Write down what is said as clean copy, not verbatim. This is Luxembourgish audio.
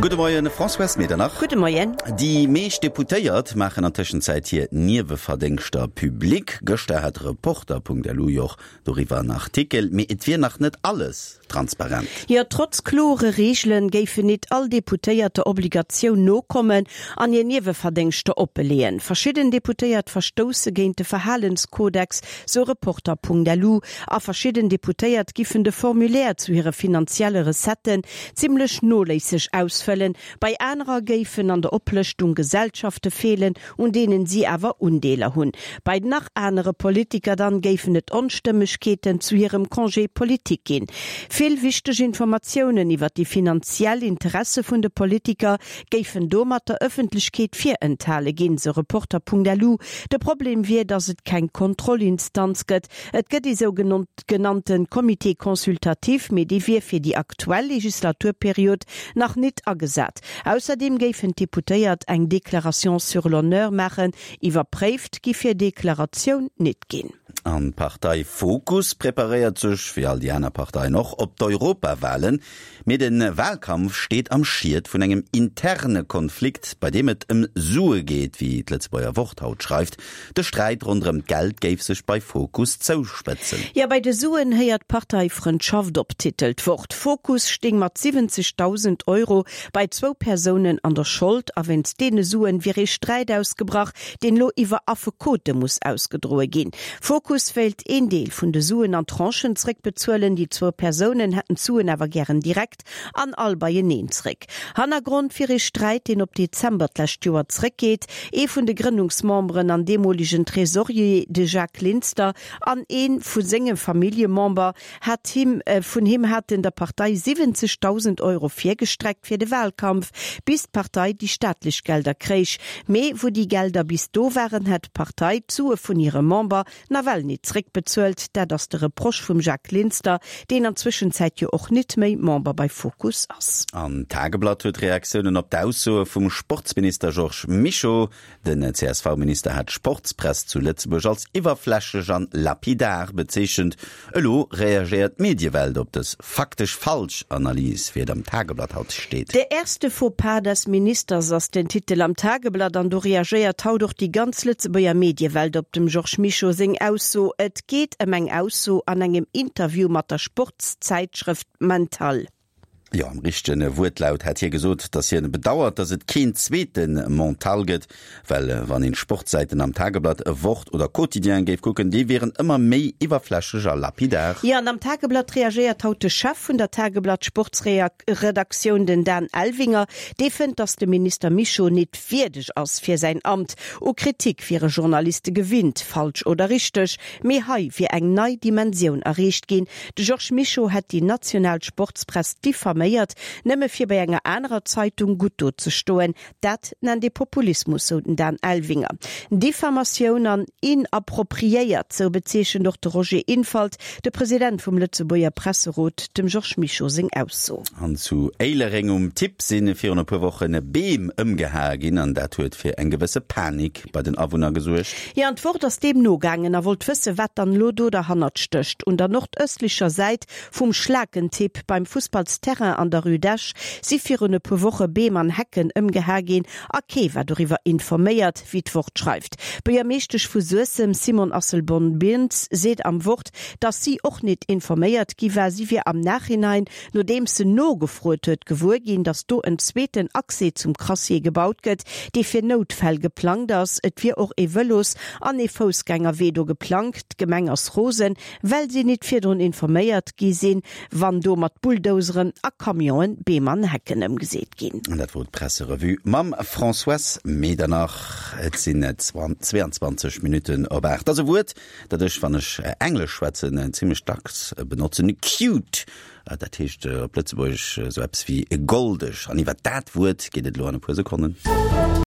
Gudde Moien, Françoise Medernach. Gudde Moien. Déi meescht Deputéiert maachen an Tëschenzäit hir Nieweverdéngschter public. Gëschter hat Reporter.lu jo och doriwwer en Artikel. Mee et wier nach net alles transparent. Jo, trotz klore Reegelen géifen nit all Deputéiert der Obligatioun nokommen an hir Nieweverdéngschter oppeleeën. Verschidden Deputéiert verstousse géint de Verhalenskodex, sou Reporter.lu. A verschidden Deputéiert giffen de Formulaire zu hire finanzielle Recetten zimmlech noléisseg ausfëllen, bei anerer géifen an der Oplëschtung Gesellschafte feelen, un deenen si awer Undeeler hunn. Bei nach anere Politiker dann géifen et Onstëmmegkeeten zu hirem Congé politique ginn. Vill wichteg Informatiounen iwwer déi finanziell Interesse vun de Politiker géifen domat der Ëffentlechkeet virenthale ginn, sou Reporter.lu. De Problem wier, datt et keng Kontrollinstanz gëtt. Et gëtt ee sou genannte Comité consultatif, mee dee wier fir déi aktuell Legislaturperiod nach nit agesat. Ausserdeem géifen d'Deputéiert eng Déclaration sur l'honneur maachen. Iwwerpréift giff hir Deklaratioun nit ginn. An d'Partei Fokus preparéiert sech, wéi all déi aner Parteien och, op d'Europawahlen. Mee de Wahlkampf steet am Schiet vun engem interne Konflikt, bei deem et ëm Sue geet, wéi d'Lëtzebuerger Wort haut schreift. De Sträit ronderëm d'Geld géif sech bei Fokus zouspëtzen. Jo, bei de Suen héiert d'Parteifrëndschaft op, titelt d'Wort. Fokus stéing mat 70.000 Euro bei zwou Persounen an der Schold a wéinst deene Suen wier ee Sträit ausgebrach, deen elo iwwer Affekote muss ausgedroe ginn. Fokus wéilt een Deel vun de Suen an Tranchen zréckbezuelen, déi zwou Persounen hätten d'Suen awer gären direkt an all beieneen zréck. Hannergrond wier ee Sträit, deen op Dezember d'lescht Joer zréckgeet. Ee vun de Grënnungsmemberen an deemolegen Tresorier, de Jacques Linster, an ee vu senge Familljemember hat him vun him haten der Partei 70.000 Euro virgestreckt fir de Wahlkampf, bis d'Partei déi staatlech Gelder kréich. Mee wou déi Gelder bis do waren, hätt d'Partei d'Sue vun hire Member nawell nit zréckbezuelt. Dat ass de Reproche vum Jacques Linster, deen an Zwëschenzäit jo och nit méi Member bei Fokus ass. An d'Tageblatt huet Reaktiounen op d'Aussoe vum Sportsminister Georges Mischo. Den CSV-Minister hat d'Sportspress zu Lëtzebuerg als iwwerflächlech an lapidar bezeechent. Elo reagéiert d'Mediewelt op dës faktesch falsch Analys, wéi et am Tageblatt haut steet. Der erste Fauxpas des Ministers ass den Titel am Tageblatt an do reagéiert haut och déi ganz Lëtzebuerger Mediewelt op dem Georges Mischo seng Ausso. Et geet ëm eng Ausso an engem Interview mat der Sportszäitschrëft Mental. Jo, am richtege Wuertlaut hätt hie gesot, datt hien bedauert, datt et keen zweete Mental gëtt, well wann een d'Sportsäiten am Tageblatt, Wort oder Quotidien géif kucken, déi wieren ëmmer méi iwwerflächlech a lapidar. Jo, an am Tageblatt reagéiert haut de Chef vun der Tageblatt Sportsredaktioun, den Dan Elvinger. Dee fënnt, datt de Minister Mischo nit wierdeg ass fir säin Amt. U Kritik wiere Journaliste gewinnt, falsch oder richteg, mee hei wier eng nei Dimensioun erreecht ginn, De Georges Mischo hätt déi national Sportspress diffaméiert, nëmme fir bei enger anerer Zeitung gutt do ze stoen. Dat nennt ee Populismus, sou den Dan Elvinger. Diffamatioun an inappropriéiert, sou bezeechent och de Roger Infalt, de President vum Lëtzebuerger Presserot, dem Georges Mischo seng Ausso. An zu Éilereng um Tipp si virun e puer Woche Beem ëmgehae ginn an dat huet fir eng gewësse Panik bei den Awunner gesuergt. Jo, an d'Wort ass deem nogaangen a wollt wëssen, wat dann elo do derhannert stécht. Un der nordëstlecher Säit vum Schlakentipp beim Fussballsterrain an der Rue d'Esch si virun e puer Woche Beem an Hecken ëmgeha ginn a kee war doriwwer informéiert, wéi d'Wort schreift. D'Buergermeeschtesch vu Suessem, Simone Asselborn-Bintz, seet am Wort, datt si och nit informéiert gi war. Si wier am Nachhinein Nodeems se nogefrot huet, gewuer ginn, datt do en zweeten Accès zum Crassier gebaut gëtt, dee fir Noutfäll geplangt ass. Et wier och ee Vëlos an ee Foussgängerwee do geplangt. D'Gemeng ass rosen, well si nit virdrun informéiert gi sinn, wann do mat Bulldozeren a Camionen Beem an Hecken ëmgeseet ginn. An dat wor d'Presserevue mam Françoise Medernach. Et sinn 22 Minutten op 8. Ass e Wuert, dat ech, wann ech Englesch schwätzen, zimlech dacks benotzen, cute. Dat heescht op Lëtzebuergesch esou eppes wéi goldeg. An iwwer dat Wuert geet et elo an e puer Sekonnen.